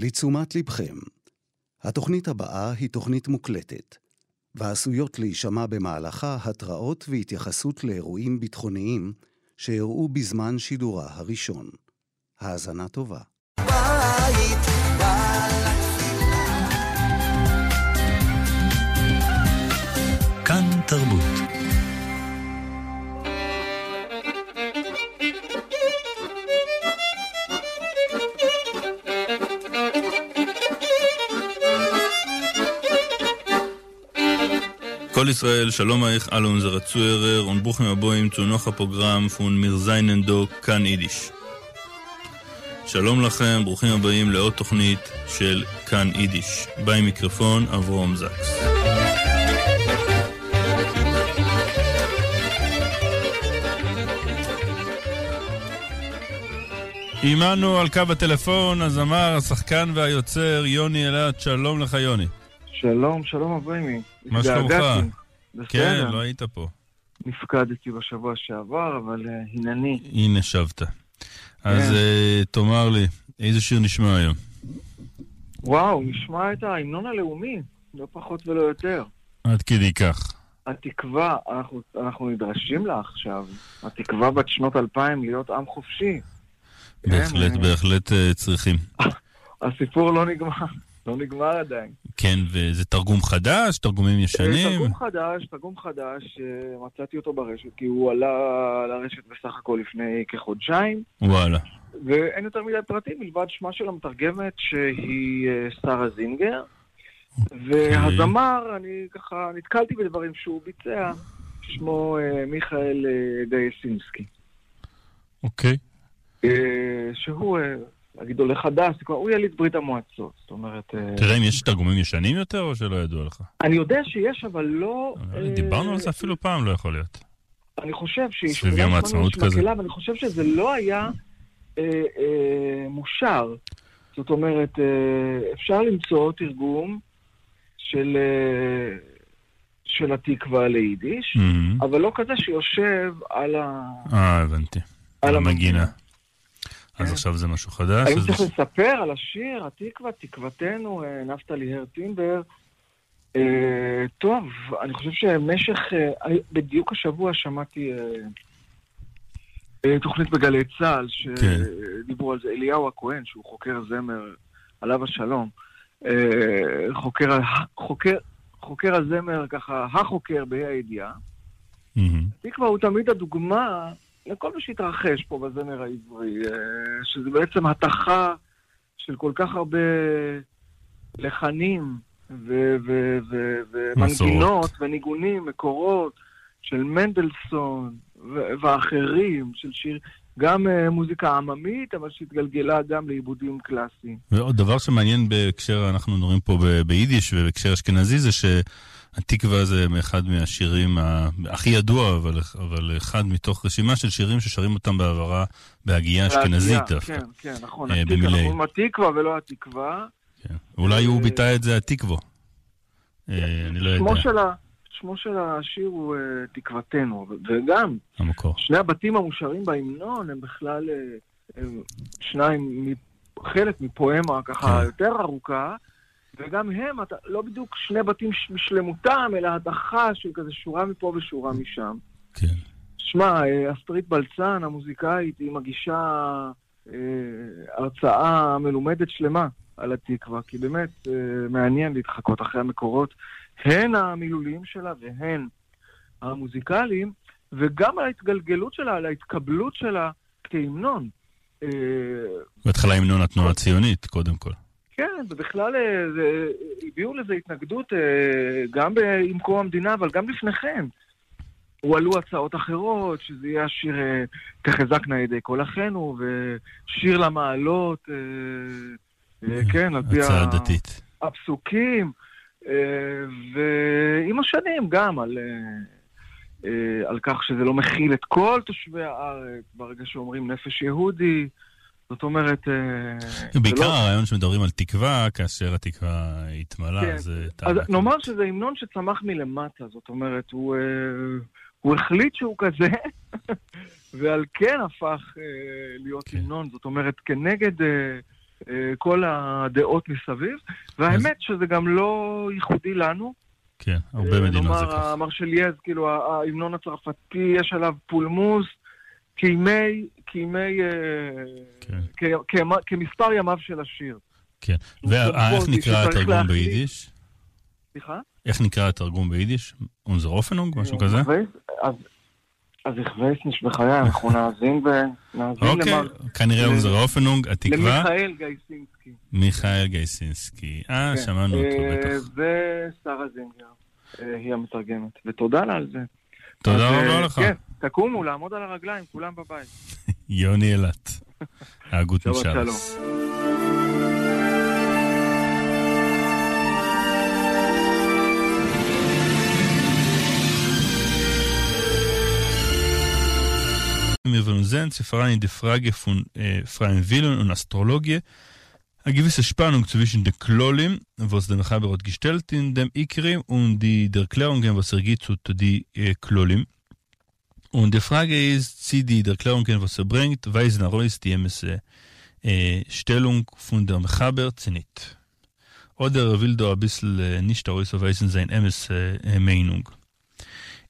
לתשומת לבכם, התוכנית הבאה היא תוכנית מוקלטת, ועשויות להישמע במהלכה התראות והתייחסות לאירועים ביטחוניים שאירעו בזמן שידורה הראשון. האזנה טובה. בית, כאן תרבות. כל ישראל, שלום אייך אל אונזערע צוהערער און ברוכים הבאים צו נאך א פראגראם פון מיר זיינען דא כאן אידיש. שלום לכם, ברוכים הבאים לעוד תוכנית של כאן אידיש. ביים מיקרופון אברהם זקס. עמנו על קו הטלפון הזמר, השחקן והיוצר יוני אלעד, שלום לך יוני. שלום, שלום אברמי. מה שלומך? התגעגעתי. כן, בסדר. לא היית פה. נפקדתי בשבוע שעבר, אבל הנני. הנה שבת. אז כן. תאמר לי, איזה שיר נשמע היום? וואו, נשמע את ההמנון הלאומי, לא פחות ולא יותר. עד כדי כך. התקווה, אנחנו נדרשים לה עכשיו. התקווה בת שנות 2000 להיות עם חופשי. כן, בהחלט, בהחלט צריכים. הסיפור לא נגמר, לא נגמר עדיין. כן, וזה תרגום חדש, תרגומים ישנים? תרגום חדש, מצאתי אותו ברשת, כי הוא עלה לרשת בסך הכל לפני כחודשיים. וואלה. ואין יותר מדי פרטים, מלבד שמה של המתרגמת שהיא שרה זינגר. והזמר, אני ככה נתקלתי בדברים שהוא ביצע, שמו מיכאל דייסינסקי. שהוא נגיד עולה חדש, הוא יליד ברית המועצות, זאת אומרת, תראה אם יש תרגומים ישנים יותר או שלא ידוע לך? אני יודע שיש, אבל לא, דיברנו על זה אפילו פעם, לא יכול להיות. אני חושב שיש סביב יום אולי העצמאות שמענו כזה. מקהלה, ואני חושב שזה לא היה מושר. זאת אומרת, אפשר למצוא תרגום של התקווה ליידיש, אבל לא כזה שיושב על הבנתי. על על המנגינה. המנגינה. אז כן. עכשיו זה משהו חדש, האם אז צריך לספר על השיר, התקווה, תקוותנו, נפתלי הרטינבר? טוב, אני חושב שמשך, אני בדיוק השבוע שמעתי תוכנית בגלי צה"ל, שדיברו על זה, אליהו הכהן, שהוא חוקר זמר, עליו השלום, חוקר הזמר, ככה, החוקר בה"א הידיעה. התקווה הוא תמיד הדוגמה לכל מה שהתרחש פה בזמר העברי, שזה בעצם התכה של כל כך הרבה לחנים ומנגינות מסורות. וניגונים, מקורות של מנדלסון ואחרים, של שיר, גם מוזיקה עממית, אבל שהתגלגלה גם לעיבודים קלאסיים. ועוד דבר שמעניין בהקשר, אנחנו נוראים פה ביידיש ובהקשר אשכנזי, זה שהתקווה זה אחד מהשירים הכי ידוע, אבל אחד מתוך רשימה של שירים ששרים אותם בעברה בהגייה אשכנזית דווקא. כן, כן, נכון. התקווה, במילי. אנחנו אומרים התקווה ולא התקווה. כן. אולי הוא ביטא את זה התקווה. אני לא יודע. שמו של השיר הוא תקוותנו, וגם המקור. שני הבתים המושרים בהמנון הם בכלל הם שניים חלק מפואמה ככה יותר ארוכה, וגם הם, אתה, לא בדיוק שני בתים בשלמותם, אלא הדחה של כזה שורה מפה ושורה משם. שמע, אסטרית בלצן, המוזיקאית, היא מגישה הרצאה מלומדת שלמה על התקווה, כי באמת מעניין להתחקות אחרי המקורות, הן המילוליים שלה והן המוזיקליים, וגם על ההתגלגלות שלה, על ההתקבלות שלה כהמנון. בהתחלה המנון התנועה הציונית, קודם כל. כן, ובכלל הביאו לזה התנגדות גם עם קום המדינה, אבל גם לפני כן. הועלו הצעות אחרות, שזה יהיה השיר תחזקנה ידי כל אחינו, ושיר למעלות, כן, על פי הצעה דתית. הפסוקים, ועם השנים גם על כך שזה לא מכיל את כל תושבי הארץ, ברגע שאומרים נפש יהודי, זאת אומרת בעיקר זה לא הרעיון שמדברים על תקווה, כאשר התקווה התמלאה, כן. זה אז טענה נאמר כזאת. שזה המנון שצמח מלמטה, זאת אומרת, הוא החליט שהוא כזה, ועל כן הפך להיות המנון, זאת אומרת, כנגד כל הדעות מסביב, והאמת שזה גם לא ייחודי לנו. כן, הרבה מדינות זה ככה. נאמר, המרשלייז, כאילו, ההמנון הצרפתי, יש עליו פולמוס, כימי, כימי, כן. כמספר ימיו של השיר. כן, ואיך נקרא התרגום ביידיש? סליחה? איך נקרא התרגום ביידיש? אונזער האפענונג, משהו כזה? אז איך ווייס נישט בחיי, אנחנו נאזין ו... אוקיי, כנראה אונזער האפענונג, התקווה. למיכאל גייסינסקי. מיכאל גייסינסקי, אה, כן. שמענו אותו בטח. ושרה זינגר, היא המתרגמת, ותודה לה על זה. תודה רבה לך. כן, תקומו, לעמוד על הרגליים, כולם בבית. יוני אילת, הגות משלס. מיר וועלן זען צי פאראן אין די פראגע פון פרייען ווילן און אסטראלאגיע א געוויסע שפאנונג צווישן די כללים וואס דער מחבר האט געשטעלט אין דעם עיקרים און די דערקלערונגען וואס ער גיט צו די כללים. און די פראגע איז צי די דערקלערונגען וואס ער ברענגט ווייזן ארויס די אמת'ע שטעלונג פון דער מחבר צי ניט. אדער ער וויל דא אביסל נישט ארויסווייזן זיין אמת'ע מיינונג.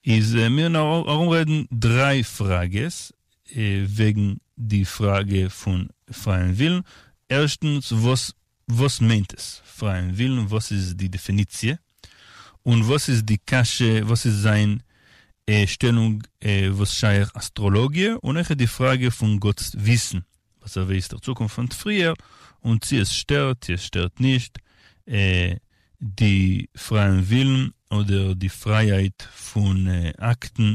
איז מיר נאר ארומרעדן דריי פראגעס וועגן די פראגע פון פרייען ווילן. ערשטנס, וואס וואס מיינט עס פרייען ווילן, וואס איז די דעפיניציע, און וואס איז די קשיא, וואס איז זיין שטעלונג וואס שייך אסטראלאגיע, און אויכעט די פראגע פון גאט'ס וויסן, וואס ער ווייסט דער צוקונפט פון פריער, און צי עס שטערט צי עס שטערט נישט די פרייען ווילן אדער די פרייהייט פון אקטן.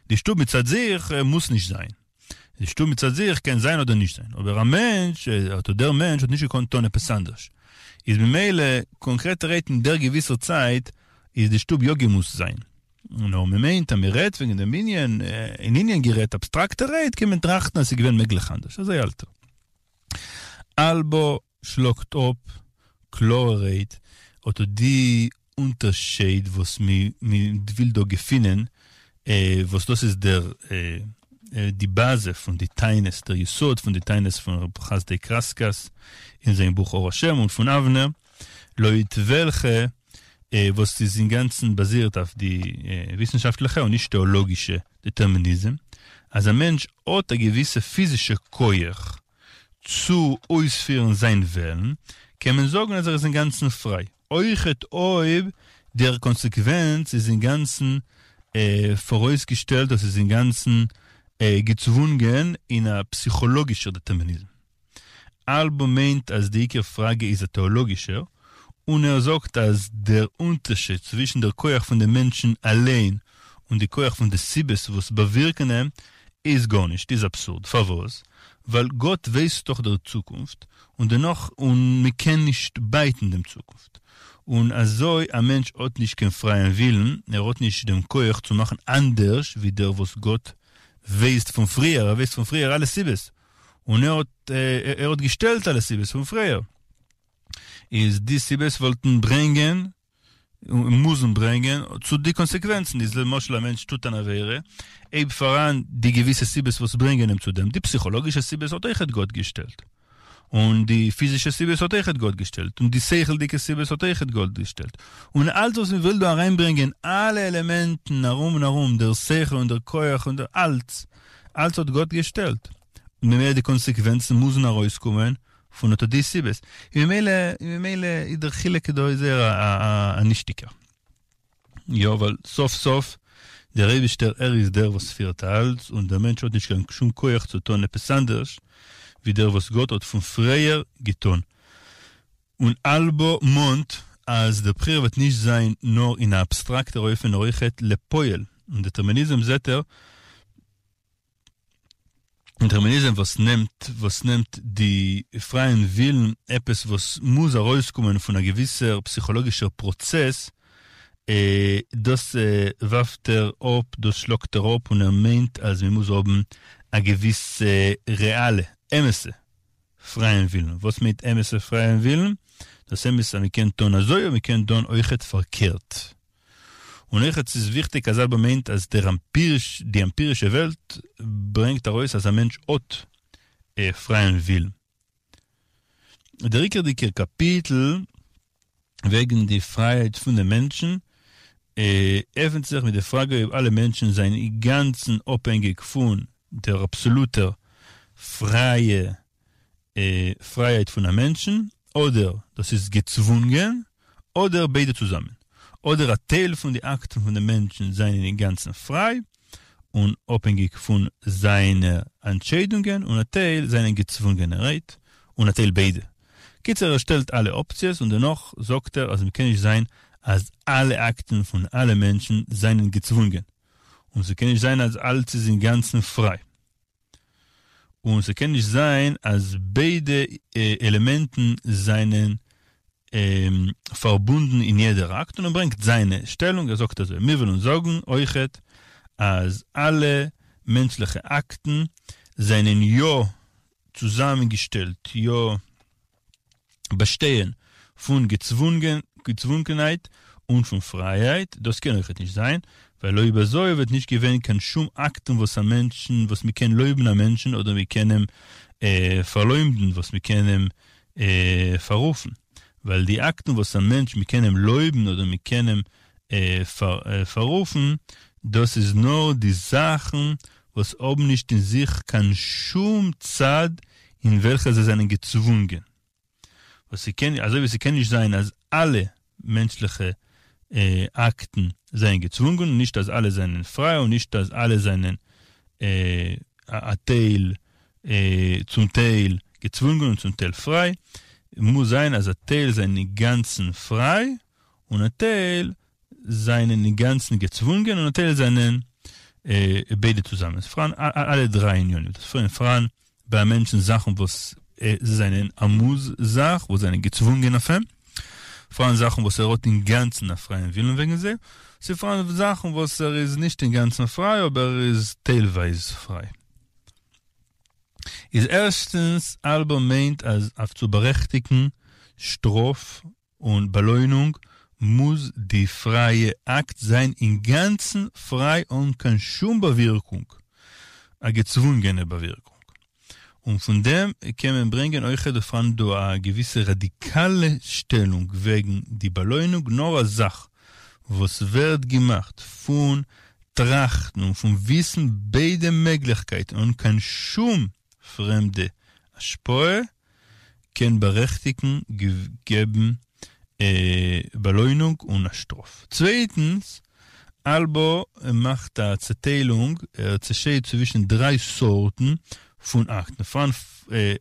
די שטוב מצד זיך מוז נישט זיין. די שטוב מצד זיך קען זיין אדער נישט זיין. אבער א מענטש, אדער דער מענטש האט נישט געקאנט טון עפעס אנדערש. איז ממילא, קאנקרעטערהייט אין דער געוויסער צייט, איז די שטוב יא געמוזט זיין. נאר מען מיינט אז מען רעדט וועגן דעם ענין, אין ענין גערעדט אבסטראקטערהייט קען מען טראכטן אז ס'איז געווען מעגליך אנדערש. אזוי האלט ער. אלבא שלאגט אפ קלארערהייט אט די אונטערשייד וואס מען וויל דא געפינען, וואס דאס איז דער די באזע פון די טענות, דער יסוד פון די טענות פון רב חסדאי קרסקס אין זיין בוך אור השם און פון אבנר, לויט וועלכע וואס איז אינגאנצן באזירט אויף די וויסנשאפטליכע און נישט טעאלאגישע דעטערמיניזם, אז א מענטש האט א געוויסע פיזישע כח צו אויספירן זיין וועלן, קען מען זאגן אז ער איז אינגאנצן פריי, אויכעט אויב דער קאנסעקווענץ איז אינגאנצן פאראויסגעשטעלט, דאס איז אינגאנצן געצוואונגען אין א פסיכאלאגישער דעטערמיניזם. אלבא מיינט אז די עיקר פראגע איז א טעאלאגישער, און ער זאגט אז דער אונטערשיד צווישן דער כח פון דעם מענטשן אליין און די כח פון די סיבות וואס באווירקן אים איז גארנישט, איז אבסורד. פארוואס? ווייל גאט ווייסט דאך דער צוקונפט, און דערנאך און מען קען נישט בייטן דעם צוקונפט. און אזוי א מענטש האט נישט קיין פרייען ווילן, ער האט נישט דעם כח צו מאכן אנדערש ווי דער וואס גאט ווייסט פון פריער, ער ווייסט פון פריער אלע סיבות, און ער האט ער האט געשטעלט אלע סיבות פון פריער. איז די סיבות וואלטן ברענגען און מוזן ברענגען צו די קאנסעקווענצן, איז למשל א מענטש טוט אן עבירה, אויב פאראן די געוויסע סיבות וואס ברענגען אים צו דעם, די פסיכאלאגישע סיבות האט אויכעט גאט געשטעלט, און די פיזישע סיבות האט אויכעט גאט געשטעלט, און די שכל'דיגע סיבות האט אויכעט גאט געשטעלט, און אלץ וואס מען וויל דא אריינברענגען אלע עלעמענטן ארום און ארום, דער שכל און דער כח און דער אלץ, אלץ האט גאט געשטעלט, און ממילא די קאנסעקווענצן מוזן ארויסקומען פון אט די סיבות, און ממילא און ממילא איז דער חילוק דא איז זייער א נישטיגער. יא, ווייל סוף סוף דער אייבישטער ער איז דער וואס פירט אלץ, און דער מענטש האט נישט קיין שום כח צו טון עפעס אנדערש ווי דער וואס גאט האט פון פריער געטון. און אלבא מאנט אז דער בחירה וועט נישט זיין נאר אין א אבסטראקטער אופן נאר אויכעט לפועל, און דעטערמיניזם זעט ער דעטערמיניזם וואס נעמט וואס נעמט די פרייען ווילן עפעס וואס מוז ארויסקומען פון א געוויסער פסיכאלאגישער פראצעס, דאס ווארפט ער אפ, דאס שלאגט ער אפ און ער מיינט אז מען מוז האבן א געוויסע רעאלע, אמת'ע, פרייען ווילן. וואס מיינט אמת'ע פרייען ווילן? דאס אמת אז מען קען טון אזוי און מען קען טון אויכעט פארקערט. און אויכעט ס'איז וויכטיג אז אלבא מיינט אז דער עמפיריש, די עמפירישע וועלט ברענגט ארויס אז א מענטש האט פרייען ווילן. דער עיקרדיקער קאפיטל וועגן די פרייהייט פון דעם מענטשן עפנט זיך מיט די פראגע אויב אלע מענטשן זענען אינגאנצן אפהענגיק פון דער אבסאלוטער פרייע פרייהייט פון א מענטשן, אדער דאס איז געצוואונגען, אדער ביידע צוזאמען, אדער א טייל פון די אקטן פון דעם מענטשן זענען אינגאנצן פריי און אפהענגיק פון זיינע אנטשיידונגען, און א טייל זענען געצוואונגענערהייט, און א טייל ביידע. קיצער ער שטעלט אלע אפציעס און דערנאך זאגט ער אז מ'קען נישט זיין אז אלע אקטן פון אלע מענטשן זענען געצוואונגען, און ס'קען נישט זיין אז אלץ איז אינגאנצן פריי. און ס'קען נישט זיין אז ביידע עלעמענטן זענען פארבונדן אין יעדער אקט, און ער ברענגט זיינע שטעלונג, ער זאגט אזוי, מיר ווילן זאגן אויכעט אז אלע מענטשליכע אקטן זענען יא צוזאמענגעשטעלט, יא באשטייען פון געצוואונגענהייט און פון פרייהייט, דאס קען אויכעט נישט זיין, ווייל אויב אזוי וואלט נישט געווען קיין שום אקטן וואס א מענטשן וואס מ'קען לויבן א מענטשן אדער מ'קען אים פארלוימדן וואס מ'קען אים פאררופן, ווייל די אקטן וואס א מענטש מ'קען אים לויבן אדער מ'קען אים פאררופן, דאס איז נאר די זאכן וואס האבן נישט אין זיך קיין שום צד אין וועלכע זיי זענען געצוואונגען. וואס ס'קען, אזוי ווי ס'קען נישט זיין אז אלע מענטשליכע אקטן זענען געצוואונגען, נישט אז אלע זענען פריי און נישט אז אלע זענען א טייל, צום טייל געצוואונגען און צום טייל פריי, מוז זיין אז א טייל זענען אינגאנצן פריי און א טייל זענען אינגאנצן געצוואונגען און א טייל זענען ביידע צוזאמען. ס'איז פאראן אלע דריי ענינים. ס'איז פאראן ביי א מענטשן זאכן וואס זענען א מוז זאך, וואס זענען געצוואונגען אויף אים. פאראן זאכן וואס ער האט אינגאנצן א פרייען ווילן וועגן זיי. ס'איז פאראן זאכן וואס ער איז נישט אינגאנצן פריי אבער ער איז טיילווייז פריי. איז ערשטנס, אלבא מיינט אז אויף צו בארעכטיגן שטראף און באלוינונג מוז די פרייע אקט זיין אינגאנצן פריי אן קיין שום באווירקונג, א געצוואונגענע באווירקונג. און פון דעם קען מען ברענגען אויכעט דא פאראן דא א געוויסע ראדיקאלע שטעלונג וועגן די באלוינונג, נאר א זאך וואס ווערט געמאכט פון טראכטן און פון וויסן ביידע מעגליכקייטן אן קיין שום פרעמדע השפעה, קען בארעכטיגן געבן באלוינונג און א שטראף. צווייטנס, אלבא מאכט א צעטיילונג, ער צעשיידט צווישן דריי סארטן פון אקטן. פאראן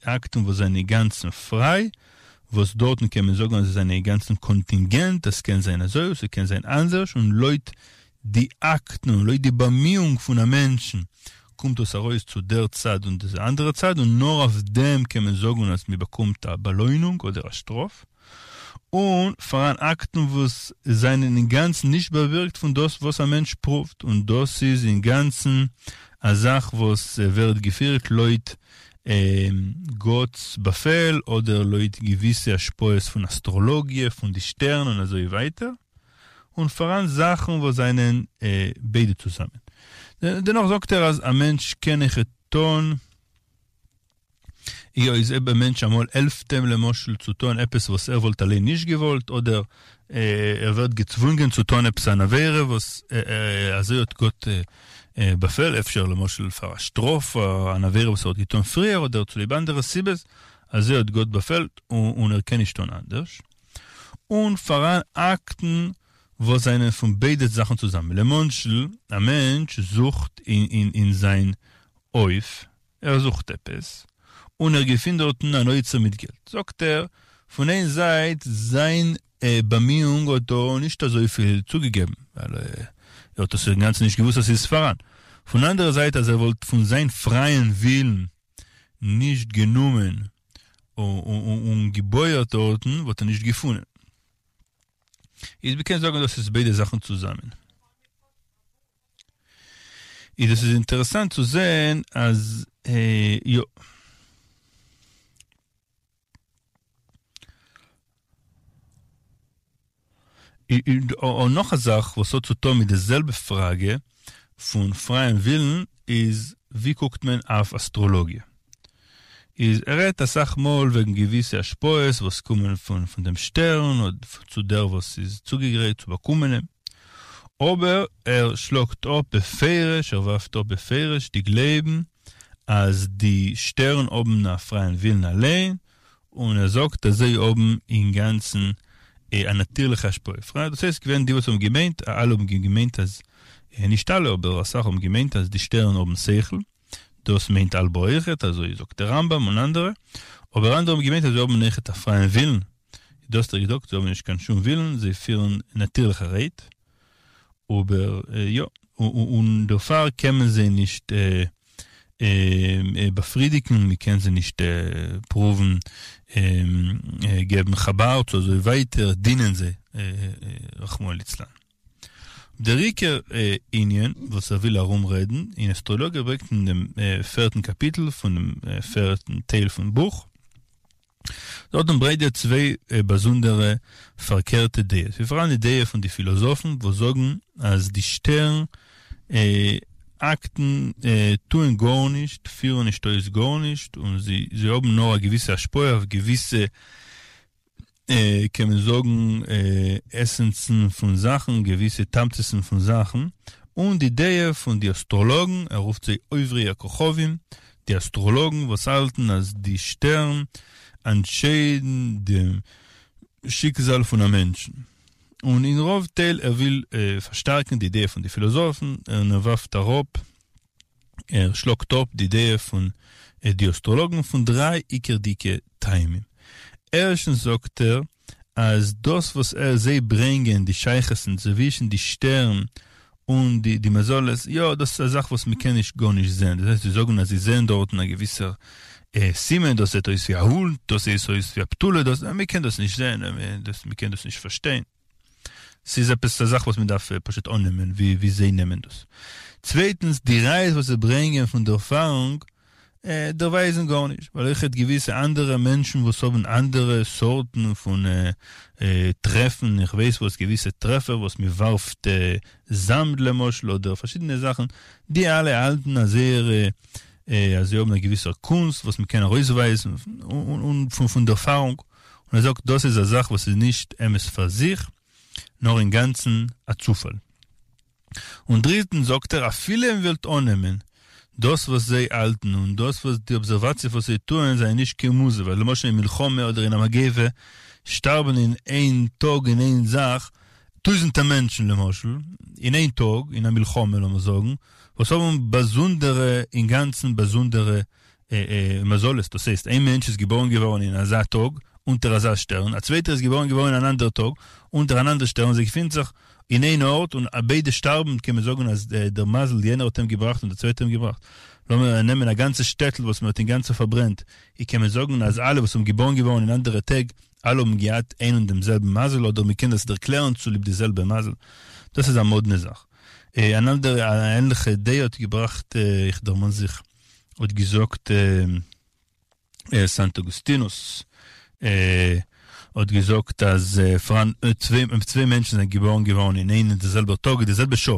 אקטן וואס זענען אינגאנצן פריי, וואס דארטן קען מען זאגן אז זיי זענען אינגאנצן קאנטינגענט, עס קען זיין אזוי און ס'קען זיין אנדערש, און לויט די אקטן און לויט די באמיאונג פון א מענטשן קומט דאס ארויס צו דער צד און די אנדערע צד און נאר אויף דעם קען מען זאגן אז מען באקומט א באלוינונג אדער א שטראף, און פאראן אקטן וואס זענען אינגאנצן נישט באווירקט פון דאס וואס א מענטש פרואווט און דאס איז אינגאנצן א זאך וואס ווערט געפירט לויט גאט'ס באפעל אדער לויט געוויסע השפעות פון אסטראלאגיע, פון די שטערן און אזוי ווייטער. און פאראן זאכן וואס זענען ביידע צוזאמען. דערנאך זאגט ער אז א מענטש קען אויכעט טון, יא איז אויב א מענטש אמאל העלפט אים למשל צו טון עפעס וואס ער וואלט אליין נישט געוואלט, אדער ער ווערט געצוואונגען צו טון עפעס אן עבירה וואס אזוי האט גאט באפעל, אפשר למשל פאר א שטראף פאר אן עבירה וואס ער האט געטון פריער אדער צוליב אנדערע סיבות, אזוי האט גאט באפעלט און ער קען נישט טון אנדערש. און פאראן אקטן וואס זענען פון ביידע זאכן צוזאמען. למשל, א מענטש זוכט אין זיין הויף, ער זוכט עפעס, און ער געפינט דארטן אן אוצר מיט געלט. זאגט ער, פון איין זייט, זיין באמיאונג האט דא נישט אזויפיל צוגעגעבן, ווייל ער האט עס אינגאנצן נישט געוואוסט אז ס'איז פאראן. פון אנדערע זייט, אז ער וואלט פון זיין פרייען ווילן נישט גענומען און געבויערט דארטן וואלט ער נישט געפונען. איז מ'קען זאגן דאס איז ביידע זאכן צוזאמען. איז דאס איז אינטערעסאנט צו זען אז יא. און נאך א זאך וואס האט צו טון מיט די זעלבע פראגע פון פרייען ווילן איז ווי קוקט מען אויף אסטראלאגיע? איז ער רעדט אסאך מאל וועגן געוויסע השפעות וואס קומען פון פון דעם שטערן אדער צו דער וואס איז צוגעגרייט צו באקומען אים, אבער ער שלאגט אפ בפירוש, ער ווארפט אפ בפירוש די גלייבן אז די שטערן האבן א פרייען ווילן אליין, און ער זאגט אז זיי האבן אינגאנצן א נאטירליכע השפעה. פריי, דאס הייסט געווען די וואס האבן געמיינט, אלע האבן געמיינט אז, נישט אלע אבער אסאך האבן געמיינט אז די שטערן האבן שכל, דאס מיינט אלבא אויכעט, אזוי זאגט דער רמב"ם און אנדערע, אבער אנדערע האבן געמיינט אז זיי האבן אויכעט א פרייען ווילן, דאס האט ער געזאגט, זיי האבן נישט קיין שום ווילן, זיי פירן נאטירליכערהייט, אבער יא, און דערפאר קען מען זיי נישט באפרידיגן, מען קען זיי נישט פרואוון געבן כאבאר צו אזוי ווייטער, דינען זיי רחמנא ליצלן. דער עיקר ענין וואס ער וויל ארום רעדן אין אסטראלאגיע ברענגט אין דעם פערטן קאפיטל פונעם פערטן טייל פון בוך, דארטן ברענגט ער צוויי באזונדערע פארקערטע דעות. ס'איז פאראן די דעה פון די פילאזאפן וואס זאגן אז די שטערן אקטן טוען גארנישט, פירן נישט אויס גארנישט, און זיי האבן נאר א געוויסע השפעה אויף געוויסע קען מען זאגן עסענסן פון זאכן, געוויסע תמצית'ן פון זאכן, און די דעה פון די אסטראלאגן, ער רופט זיי עוברי הכוכבים, די אסטראלאגן וואס האלטן אז די שטערן אנטשיידן דעם שיקזאל פון א מענטשן. און אין רוב טייל ער וויל פארשטארקן די דעה פון די פילאזאפן, און ער ווארפט אראפ, ער שלאגט אפ די דעה פון די אסטראלאגן פון דריי עיקרדיגע טעמים. ערשטנס זאגט ער אז דאס וואס ער זיי ברענגען די שייכות'ן צווישן די שטערן און די די מזלות, יא דאס איז א זאך וואס מ'קען נישט גארנישט זען, דאס הייסט זיי זאגן אז זיי זעען דארטן א געוויסער סימן, דאס זעט אויס ווי א הונט, דאס זעט אויס ווי א בתולה, דאס, מ'קען דאס נישט זען, מ'קען דאס נישט פארשטיין. ס'איז עפעס א זאך וואס מ'דארף פשוט אננעמען ווי זיי נעמען דאס. צווייטנס, די ראיות וואס זיי ברענגען פון דערפארונג דערווייזן גארנישט, ווייל אויכעט געוויסע אנדערע מענטשן וואס האבן אנדערע סארטן פון טרעפן, איך ווייס וואס, געוויסע טרעפער וואס מ'ווארפט זאמד למשל, אדער פארשידענע זאכן, די אלע האלטן אז זייערע אז זיי האבן א געוויסער קונסט וואס מ'קען ארויסווייזן און פון דערפארונג. און ער זאגט דאס איז א זאך וואס איז נישט אמת פאר זיך, נאר אינגאנצן א צופאל. און דריטנס זאגט ער אפילו מען וועלט אננעמען דאס וואס זיי האלטן און דאס וואס די אבזערוואציע וואס זיי טוען זענען נישט קיין מוז ווייל למשל אין מלחמה אדער אין א מגיפה שטארבן אין איין טאג אין איין זאך טויזענטער מענטשן למשל אין איין טאג אין א מלחמה לאמיר זאגן וואס האבן באזונדערע אינגאנצן באזונדערע מזלות, דאס הייסט איין מענטש איז געבארן געווארן אין אזא טאג אונטער אזא שטערן, א צווייטער איז געבארן געווארן אין אן אנדער טאג אונטער אן אנדער שטערן, זיי געפינט זיך אין איין ארט און ביידע שטארבן, קען מען זאגן אז דער מזל יענער האט אים געבראכט און דער צווייטער האט אים געבראכט. לאמיר נעמען א גאנצע שטעטל וואס מען האט אינגאנצן פארברענט, אי קען מען זאגן אז אלע וואס האבן געבארן געווארן אין אנדערע טעג, אלע האבן געהאט איין און דעם זעלבן מזל, אדער מען קען דאס ערקלערן צוליב די זעלבע מזל? דאס איז א מאדנע זאך. אן אנדערע א ענליכע דעה האט געבראכט, איך דערמאן זיך, האט געזאגט סאנט אוגוסטינוס האט געזאגט אז פאראן צוויי מענטשן זענען געבארן געווארן אין איין און די זעלבע טאג אין די זעלבע שעה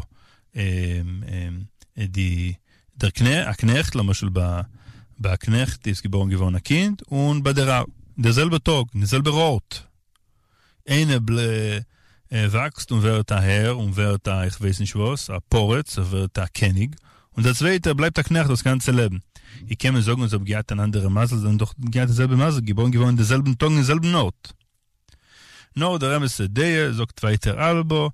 די דער קנעכט א קנעכט למשל ביי ביי א קנעכט איז געבארן געווארן א קינד און ביי דער האר אין דער זעלבע טאג אין די זעלבער ארט איינער וואקסט און ווערט א הער און ווערט א איך ווייס נישט וואס, א פורץ, ער ווערט א קעניג, און דער צווייטער בלייבט א קנעכט דאס גאנצע לעבן. ווי קען מען זאגן אז זיי האבן געהאט אן אנדערע מזל, זיי האבן דאך געהאט די זעלבע מזל, געבארן געווארן אין די זעלבן טאג אין זעלבן ארט. נאר דער אמת'ע דעה, זאגט ווייטער אלבא,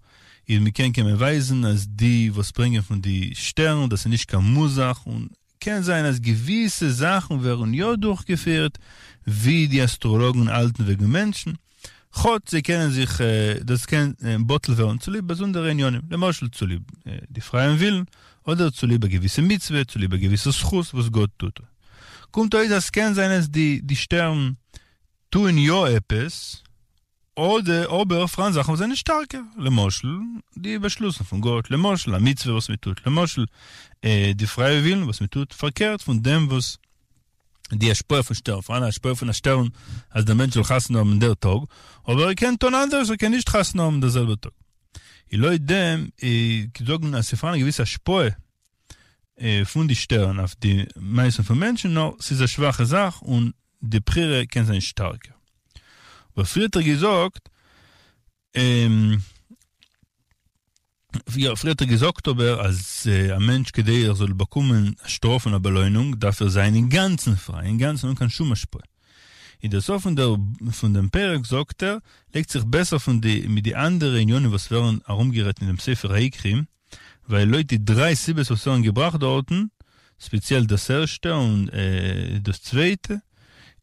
איז מ'קען קען מען ווייזן אז די וואס ברענגען פון די שטערן דאס איז נישט קיין מוז-זאך און קען זיין אז געוויסע זאכן ווערן יא דורכגעפירט ווי די אסטראלאגן האלטן וועגן מענטשן, כאטש זיי קענען זיך דאס קען בטל ווערן צוליב באזונדערע עניינים, למשל צוליב די פרייען ווילן, אדער צוליב א געוויסע מצוה, צוליב א געוויסע זכות וואס גאט טוט. קומט אויס אז ס'קען זיין אז די שטערן טוען יא עפעס, אדער אבער פאראן זאכן וואס זענען שטארקער, למשל די באשלוסן פון גאט, למשל א מצוה וואס מען טוט, למשל די פרייע ווילן וואס מען טוט פארקערט פון דעם וואס די השפעה פון שטערן, פאראן א השפעה פון א שטערן אז דער מענטש זאל חתונה האבן דער טאג, אבער ער קען טון אנדערש, ער קען נישט חתונה האבן דער זעלבער טאג. און לויט דעם זאגן אז ס'פאראן א געוויסע השפעה. פון די שטערן אויף די מעשים פון מענטשן, נאר ס'איז א שוואכע זאך און די בחירה קען זיין שטארקער. אבער פריער האט ער געזאגט, יא, פריער האט ער געזאגט אבער אז א מענטש כדי ער זאל באקומען א שטראף און א באלוינונג דארף ער זיין אינגאנצן פריי, אינגאנצן אן קיין שום השפעה. אין דער סוף פון דער פון דעם פרק זאגט ער, לייגט זיך בעסער פון די מיט די אנדערע עניינים וואס ווערן ארומגערעדט אין דעם ספר העיקרים, ווייל לויט די דריי סיבות וואס ווערן געבראכט דארטן, ספעציעל דאס ערשטע און דאס צווייטע,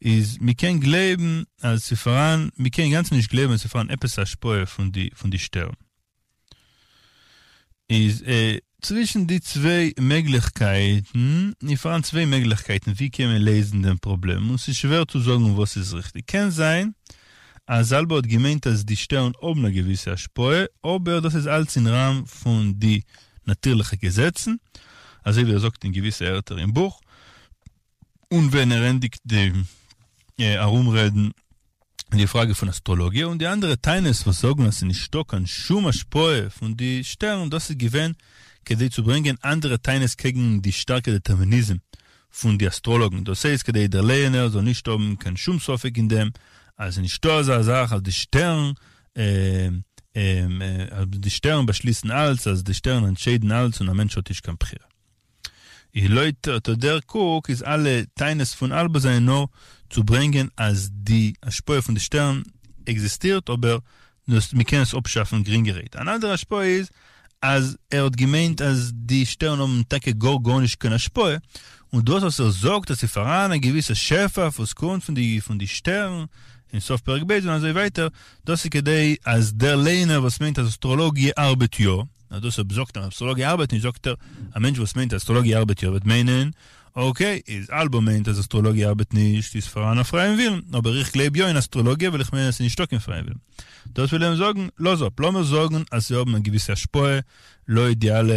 איז מ'קען גלייבן אז ס'פאראן, מ'קען אינגאנצן נישט גלייבן אז ס'פאראן עפעס א השפעה פון די פון די שטערן. איז צווישן די צוויי מעגליכקייטן, איז פאראן צוויי מעגליכקייטן ווי קען מען לעזן דעם פראבלעם, און ס'איז שווער צו זאגן וואס איז ריכטיג. קען זיין אז אלבא האט געמיינט אז די שטערן האבן א געוויסע השפעה, אבער דאס איז אלץ אין ראם פון די נאטירליכע געזעצן, אזוי ווי ער זאגט אין געוויסע ערטער אין בוך, און ווען ער ענדיגט די ארומרעדן די פראגע פון אסטראלאגיע און די אנדערע טענות וואס זאגן אז ס'איז נישטא קיין שום השפעה פון די שטערן, דאס איז געווען כדי צו ברענגען אנדערע טענות קעגן די שטארקע דעטערמיניזם פון די אסטראלאגן, דאס הייסט כדי דער לייענער זאל נישט האבן קיין שום ספק אין דעם אז ס'איז נישטא אזא זאך אז די שטערן אז די שטערן באשליסן אלץ, אז די שטערן אנטשיידן אלץ און א מענטש האט נישט קיין בחירה. איז לויט אט דער קוק איז אלע טענות פון אלבא זענען נאר צו ברענגען אז די השפעה פון די שטערן עקזיסטירט אבער דאס מ'קען עס אפשאפן גרינגערהייט. אן אנדערע השפעה איז אז ער האט געמיינט אז די שטערן האבן טאקע גאר גארנישט קיין השפעה, און דאס וואס ער זאגט אז ס'איז פאראן א געוויסע שפע וואס קומט פון די פון די שטערן אין סוף פרק ב' און אזוי ווייטער, דאס איז כדי אז דער ליינער וואס מיינט אז אסטראלאגיע ארבעט יא, נאר דאס אויב זאגט ער אסטראלאגיע ארבעט נישט זאגט ער א מענטש וואס מיינט אז אסטראלאגיע ארבעט יא וועט מיינען אקעי איז אלבא מיינט אז אסטראלאגיע ארבעט נישט איז פאראן א פרייען ווילן אבער איך גלייב יא אין אסטראלאגיע ווייל איך מיין אז ס'איז נישטא קיין פרייען ווילן דאס וויל ער זאגן לאז אפ לאמיר זאגן אז זיי האבן א געוויסע השפעה לויט די אלע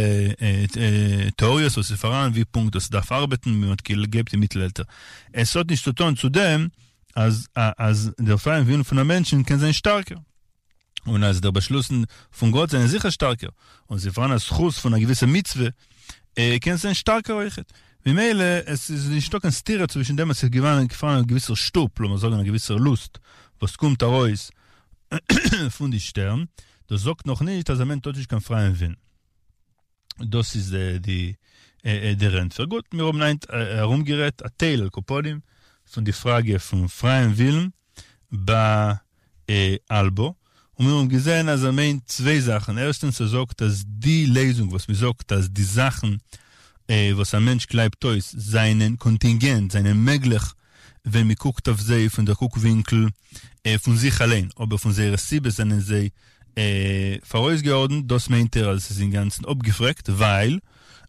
טעאריעס וואס איז פאראן ווי פונקט דאס דארף ארבעטן ווי מ'האט געגלייבט אין מיטלעלטער עס האט נישט צו טון צו דעם אז אז דער פרייען ווילן פון א מענטשן קען זיין שטארקער. און אז דער באשלוסן פון גאט זענען זיכער שטארקער, און ס'איז פאראן א זכות פון א געוויסע מצוה, קען עס זיין שטארקער אויכעט. ממילא עס איז נישטא קיין סתירה צווישן דעם אז ס'איז געווארן פאראן א געוויסער שטופ, לאמיר זאגן א געוויסער לוסט, וואס קומט ארויס פון די שטערן, דאס זאגט נאכנישט אז א מענטש האט נישט קיין פרייען ווילן. דאס איז די דער ענטפער. גוט, מיר האבן היינט ארומגערעדט א טייל על כל פנים פון די פראגע פון פרייען ווילן ביי אלבא, און מיר האבן געזען אז ער מיינט צוויי זאכן, ערשטענס ער זאגט אז די לעזונג וואס מען זאגט אז די זאכן וואס א מענטש קלייבט אויס זענען קאנטינגענט, זענען מעגליך ווען מען קוקט אויף זיי פון דער קוק ווינקל פון זיך אליין, אבער פון זייערע סיבות זענען זיי פאראויסגעארדנט, דאס מיינט ער אז עס איז אינגאנצן אפגעפרעגט, ווייל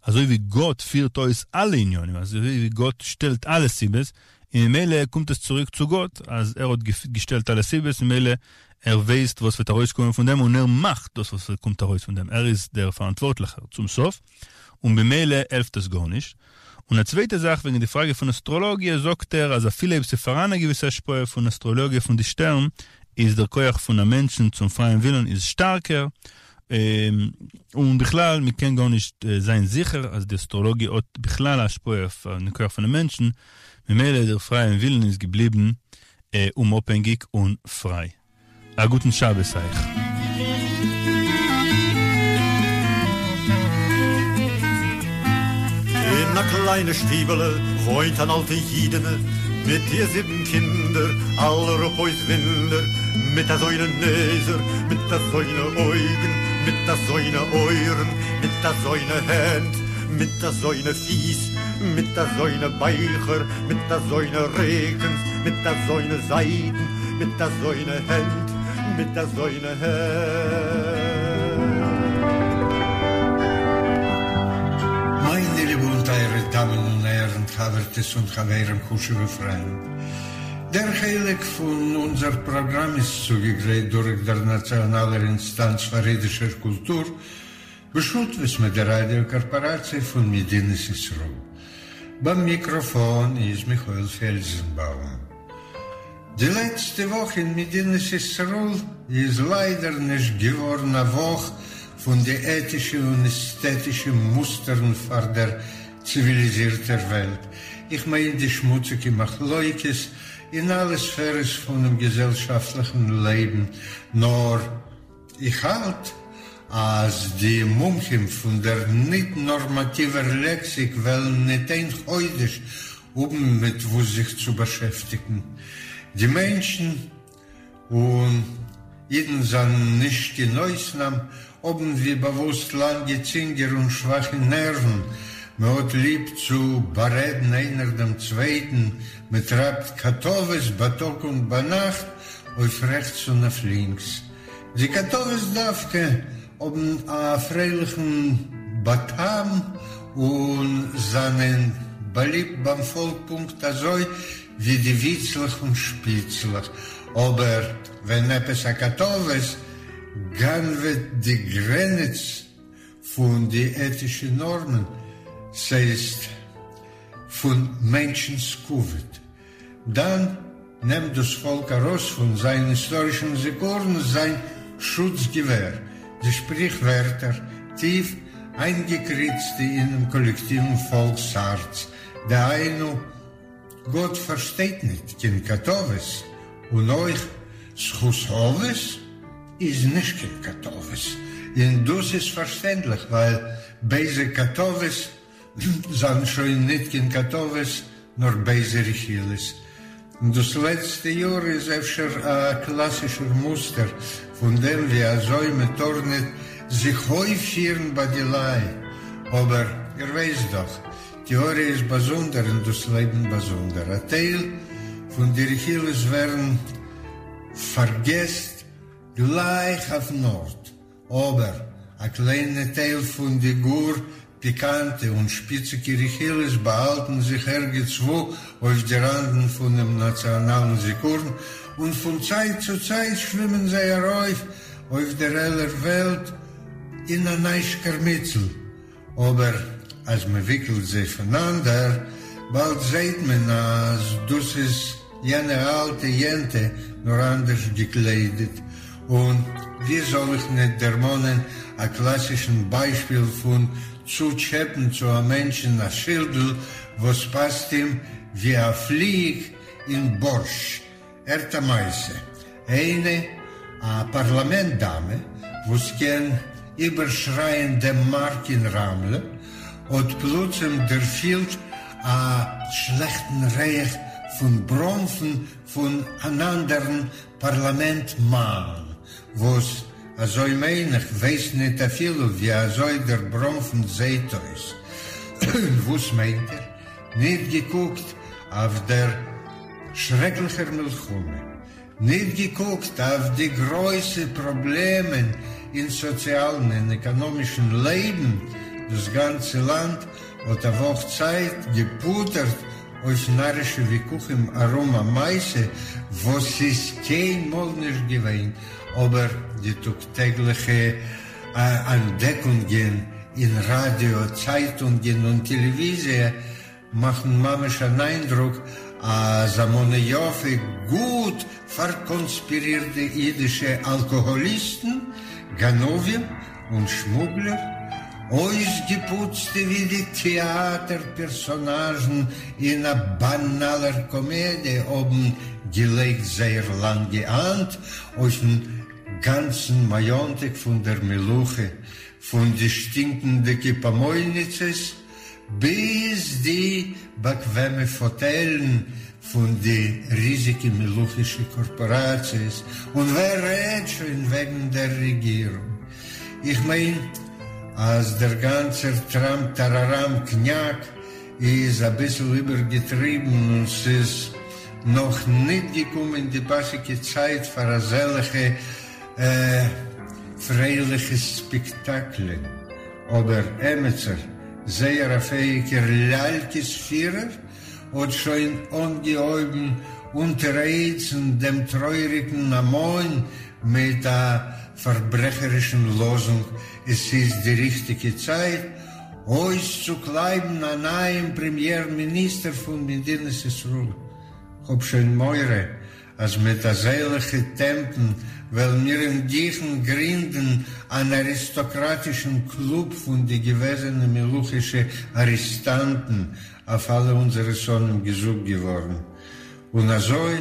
אזוי ווי גאט פירט אויס אלע עניינים, אזוי ווי גאט שטעלט אלע סיבות, און ממילא קומט עס צוריק צו גאט אז ער האט געשטעלט אלע סיבות, ממילא ער ווייסט וואס וועט ארויסקומען פון דעם און ער מאכט דאס וואס קומט ארויס פון דעם, ער איז דער פאראנטווארטליכער צום סוף, און במילא העלפט עס גארנישט. און א צווייטע זאך וועגן די פראגע פון אסטראלאגיע זאגט ער אז אפילו אויב ס'פאראן א געוויסע השפעה פון אסטראלאגיע פון די שטערן איז דער כח פון א מענטשן צום פרייען ווילן איז שטארקער, און בכלל מ'קען גארנישט זיין זיכער אז די אסטראלאגיע האט בכלל א השפעה אויף דעם כח פונעם מענטשן, ממילא דער פרייען ווילן איז געבליבן אומאפהענגיק און פריי. א גוטן שבת אייך. אין א קליינע שטיבעלע וואוינט אן אלטע אידענע מיט איר זיבן קינדער, אלע רפואות וואונדער, מיט אזוינע נעזער, מיט אזוינע אויגן, מיט אזוינע אויערן, מיט אזוינע הענט, מיט אזוינע פיס, מיט אזוינע בייכער, מיט אזוינע ריקנס, מיט אזוינע זייטן, מיט אזוינע הענט, מיט אזוינע הענט. מיינע ליבע און טייערע דאמען און הערן, חבר'טעס און חברים, חשוב'ע פריינט. דער חלק פון אונזער פראגראם איז צוגעגרייט דורך דער נאציאנאלער אינסטאנץ פאר אידישער קולטור, בשותפות מיט דער ראדיא קארפאראציע פון מדינת ישראל. ביים מיקראפאן איז מיכאל פעלזנבאום. די לעצטע וואך אין מדינת ישראל איז ליידער נישט געווארן א וואך פון די עטישע און עסטעטישע מוסטערן פאר דער. ציוויליזירטער וועלט, איך מיין די שמוציגע מחלוקת אין אלע ספערעס פונעם געזעלשאפטליכן לעבן, נאר איך האלט אז די מומחים פון דער ניט-נארמאטיווער לעקסיק וועלן ניט איין חודש האבן מיט וואס זיך צו באשעפטיגן. די מענטשן און אידן זענען נישט קיין אויסנאם, האבן ווי באוואוסט לאנגע צינגער און שוואכע נערוון, מען האט ליב צו בארעדן איינער דעם צווייטן, מען טרייבט קאטאוועס בייטאג און ביינאכט אויף רעכטס און אויף לינקס. די קאטאוועס דווקא האבן א פרייליכן בטעם און זענען באליבט ביים פאלק פונקט אזוי ווי די וויצלעך און שפיצלעך, אבער ווען עפעס א קאטאוועס גנב'עט די גרעניץ פון די עטישע נארמען, ס'הייסט פון מענטשנ'ס כבוד, דאן נעמט דאס פאלק ארויס פון זיין היסטארישן זיכרון זיין שוץ געווער, די שפריכווערטער, טיף איינגעקריצטע אינעם קאלעקטיוון פאלקס הארץ, דהיינו, גאט פארשטייט ניט קיין קאטאוועס, און אויך זכות אבות איז נישט קיין קאטאוועס, און דאס איז פארשטענדליך ווייל בייזע קאטאוועס זיינען שוין ניט קיין קאטאוועס נאר בייזע רכילות. און דאס לעצטע יאר איז אפשר א קלאסישער מוסטער פון דעם ווי אזוי מען טאר ניט זיך אויפפירן ביי די לייט, אבער איר ווייסט דאך טעאריע איז באזונדער און דאס לעבן באזונדער. א טייל פון די רכילות ווערן פארגעסט גלייך אויפן ארט, אבער א קליינע טייל פון די גאר פיקאנטע און שפיציגע רכילות באהאלטן זיך ערגעצוואו אויף די ראנדן פונעם נאציאנאלן זיכרון, און פון צייט צו צייט שווימען זיי ארויף אויף דער העלער וועלט אין א ניי שקערמיצל. אבער אז מען וויקלט זיי פונאנדער, באלד זעהט מען אז דאס איז יענע אלטע יענטע נאר אנדערש געקליידעט. און ווי זאל איך ניט דערמאנען א קלאסישן ביישפיל פון צוטשעפען צו א מענטשן א שילדל וואס פאסט אים ווי א פליג אין בארשט. הערט א מעשה, איינע א פארלאמענט דאמע וואס קען איבערשרייען דעם מארק אין רמלה האט פלוצים דערפילט א שלעכטן ריח פון בראנפן פון אן אנדערן פארלאמענט מאן וואס אזוי מיין איך ווייסט ניט אפילו ווי אזוי דער בראנפן זעהט אויס. וואס מיינט איר? ניט געקוקט אויף דער שרעקליכער מלחמה, ניט געקוקט אויף די גרויסע פראבלעמען אין סאציאלן און עקאנאמישן לעבן, דאס גאנצע לאנד האט א וואך צייט געפוטערט אויף נארישע וויכוחים ארום א מעשה וואס איז קיינמאל נישט געווען, אבער די טאג-טעגליכע אנטדעקונגען אין ראדיא, צייטונגען און טעלעוויזיע מאכן ממש אן איינדרוק אז א מנה יפה גוט פארקאנספירירטע אידישע אלקאהאליסטן, גנבים און שמוגלער, אויסגעפוצטע ווי די טעאטער פערסאנאזשן אין א באנאלער קאמעדיע האבן געלייגט זייער לאנגע האנט אויפן גאנצן מאיאנטעק פון דער מלוכה, פון די שטינקנדיקע פאמויניצעס ביז די באקוועמע פאטעלן פון די ריזיגע מלוכישע קארפאראציעס, און ווער רעדט שוין וועגן דער רעגירונג. איך מיין אז דער גאנצער טראם טאראראם קניאק איז אביסל איבערגעטריבן און ס'איז נאך ניט געקומען די פאסיגע צייט פאר אזעלעכע פרייליכע ספעקטאקלען, אבער עמיצער, זייער א פעאיגער ליאלקעס פירער, האט שוין אנגעהויבן אונטערהעצן דעם טרויעריגן המון מיט א פארברעכערישן לאזונג, עס איז די ריכטיגע צייט אויסצוקלייבן א נייעם פרעמיער מיניסטער פון מדינת ישראל. כ'האב שוין מורא. אַז מיט אַזעלכע טעמפּן וועלן מיר אין גיכן גרינדן אַן אַריסטאָקראַטישן קלוב פֿון די געוועזענע מלוכישע אַרעסטאַנטן, אויף אַלע אונדזערע שׂונאים געזאָגט געוואָרן. און אַזוי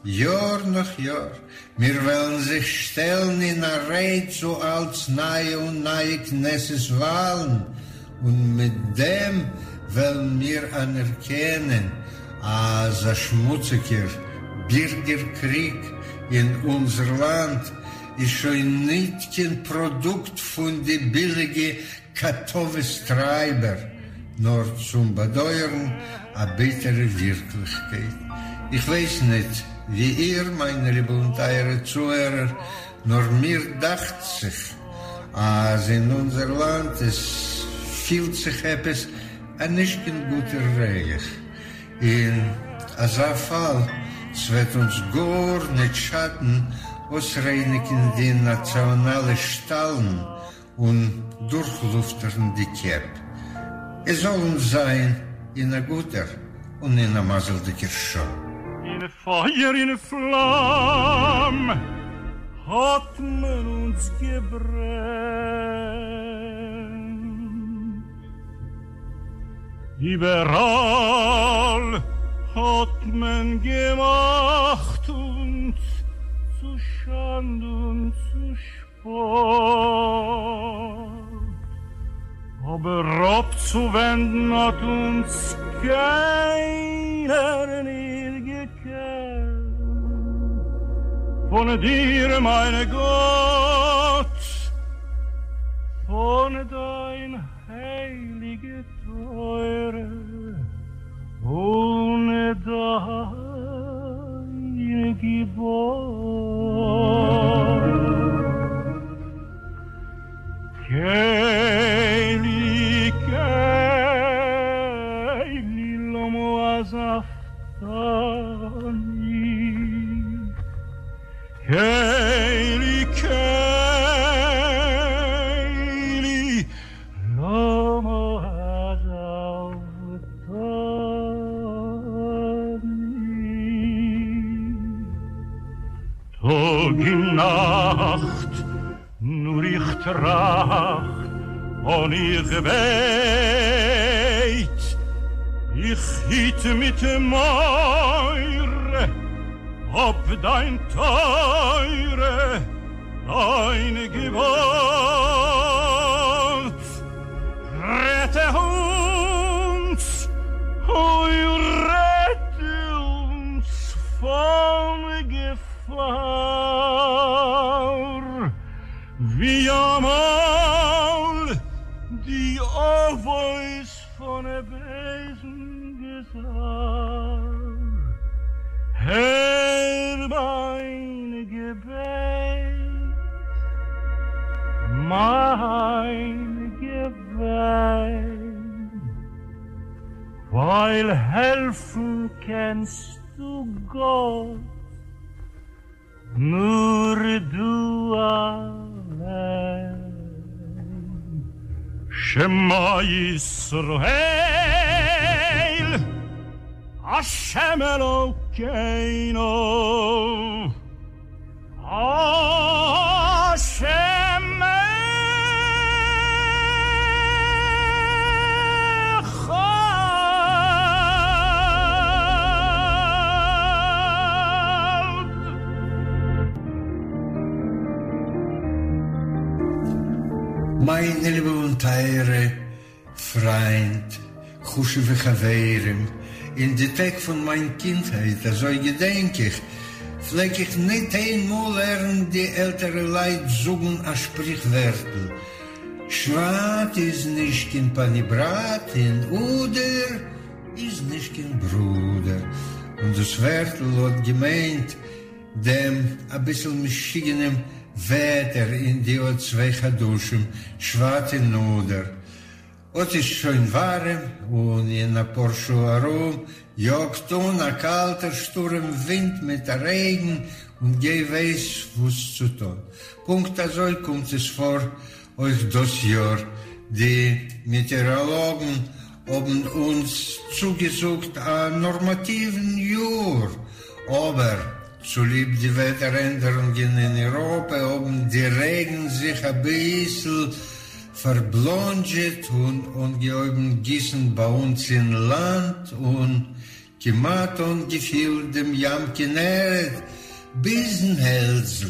יאָר נאָך יאָר, מיר וועלן זיך שטעלן אין אַ ריי צו אַלץ נײַע און נײַע כּנסת-וואַלן, און מיט דעם וועלן מיר אַנערקענען, אַז אַ שמוציקער בירגער-קריג אין אונדזער לאַנד איז שוין ניט קיין פּראָדוקט פֿון די ביליגע קאַטאָוועס-טרײַבער, נאָר צום באַדויערן אַ ביטערע ווירקלעכקייט. איך ווייס ניט, ווי איר, מיינע ליבע און טייערע צוהערער, נאָר מיר דאַכט זיך, אַז אין אונדזער לאַנד עס פֿילט זיך עפּעס אַ נישט קיין גוטער ריח. אין אַזאַ פֿאַל, ס'וועט אונדז גאָר ניט שאַטן אויסרייניקן די נאַציאָנאַלע שטאַלן און דורכלופטערן די קעפ. עס זאל אונז זיין אין א גוטער און אין א מזל'דיגער שעה. אין פייער אין פלאם האט מען אונז געברענט, איבעראל האט מען געמאכט אונז צו שאנד און צו שפאט, אבער אפצואווענדן האט אונז קיינער ניט געקענט פון דיר מיין גאט, פון דיין הייליגע תורה און דיין געבאט. קלי קלי למה עזבתני קלי קלי למה עזבתני טאג און נאכט נאר איך טראכט און איך בעט, איך היט מיט מורא אפ דיין תורה, דיין געבאט. רעטע אונז, אוי רעטע אונז פון געפאר, ווי אמאל די אבות פון בייזן גזר. הער מיין געבעט, מיין געוויין, ווייל העלפן קענסטו גאט נאר דו אליין. שמע ישראל, השם אלוקינו, השם אחד. מיינע ליבע און טייערע פריינט, חשוב'ע חברים, אין די טעג פון מיין קינדהייט, אזוי געדענק איך, פלעג איך ניט איין מאל הערן די עלטערע לייט זאגן א שפריכווערטל, שבט איז נישט קיין פאניבראט און אדר איז נישט קיין ברודער. און דאס ווערטל האט געמיינט דעם אביסל משוגענעם וועטער אין די אט צוויי חדשים, שבט און אדר. אט איז שוין ווארעם, און אין אפאר שעה ארום יאגט אן א קאלטער שטורעם ווינט מיט א רעגן, און גיי ווייס וואס צו טון. פונקט אזוי קומט עס פאר אויך דאס יאר, די מעטעאראלאגן האבן אונז צוגעזאגט א נארמאטיוון יאר, אבער. צוליב די וועטער ענדערונגען אין אירופע האבן די רעגן זיך אביסל פארבלאנדזשעט און אנגעהויבן גיסן ביי אונז אין לאנד און כמעט אנגעפילט דעם ים כנרת ביזן העלדזל.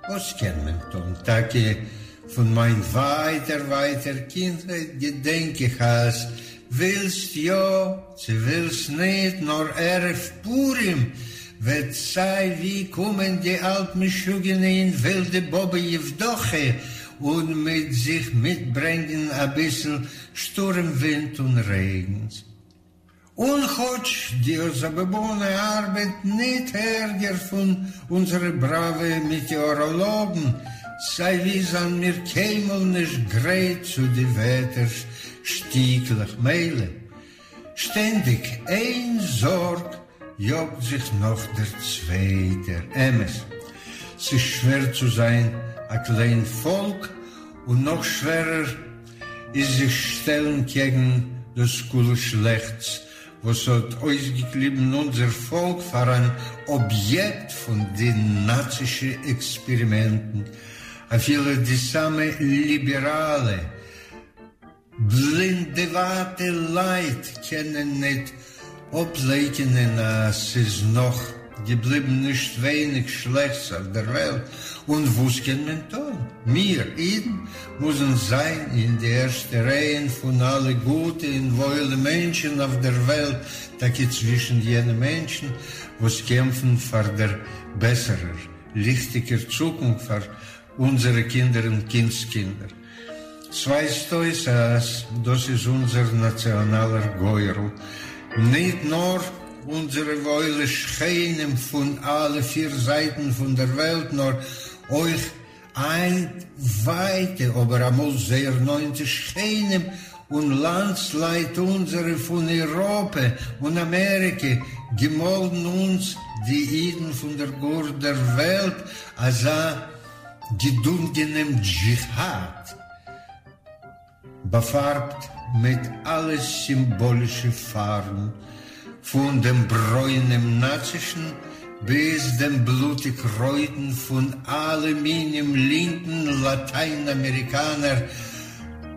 וואס קען מען טון? טאקע פון מיין ווייטער ווייטער קינדהייט געדענק איך אז ווילסט יא צו ווילסט ניט נאר ערב פורים וועט סיי ווי קומען די אלט משוגענע און ווילדע באבע יעוודאכע און מיט זיך מיטברענגען אביסל שטורעם ווינט און רעגנס. און כאָטש די זאַבאָבאָנע אַרבעט ניט ערגער פֿון אונדזערע בראַווע מעטעאָראָלאָגן, סײַ-ווי זײַנען מיר קיינמאָל נישט גרייט צו די וועטער-שטיקלעך, מילא, שטענדיק איין זאָרג יאָגט זיך נאָך דער צווייטער. אמת, ס'איז שווער צו זײַן אַ קליין פֿאָלק, און נאָך שווערער, איז זיך שטעלן קעגן דאס כולו שלעכטס וואס האט אויסגעקליבן אונזער פאלק פאר אן אביעקט פון די נאצישע עקספערימענטן, אפילו די סאמע ליבעראלע בלינדעוואטע לייט קענען ניט אפלייקענען אז ס'איז נאך געבליבן נישט ווייניג שלעכטס אויף דער וועלט, און וואס קען מען טון? מיר, אידן, מוזן זיין אין די ערשטע רייען פון אלע גוטע און וואוילע מענטשן אויף דער וועלט, טאקע צווישן יענע מענטשן וואס קעמפן פאר דער בעסערער, ליכטיגער צוקונפט פאר אונזערע קינדער און קינדס-קינדער. ס'ווייזט אויס אז דאס איז אונזער נאציאנאלער גורל, ניט נאר אונזערע וואוילע שכנים פון אלע פיר זייטן פון דער וועלט, נאר אויך היינט ווייטע, אבער אמאל זייער נאענטע שכנים און לאנדסלייט אונזערע פון איראפע און אמעריקע, געמאלדן אונז די אידן פון דער גאר דער וועלט אזא געדונגענעם דזשיהאד, באפארבט מיט אלע סימבאלישע פארבן, פון דעם ברוינעם נאצישן ביז דעם בלוטיג רויטן פון אלע מינים לינקן לאטיין-אמעריקאנער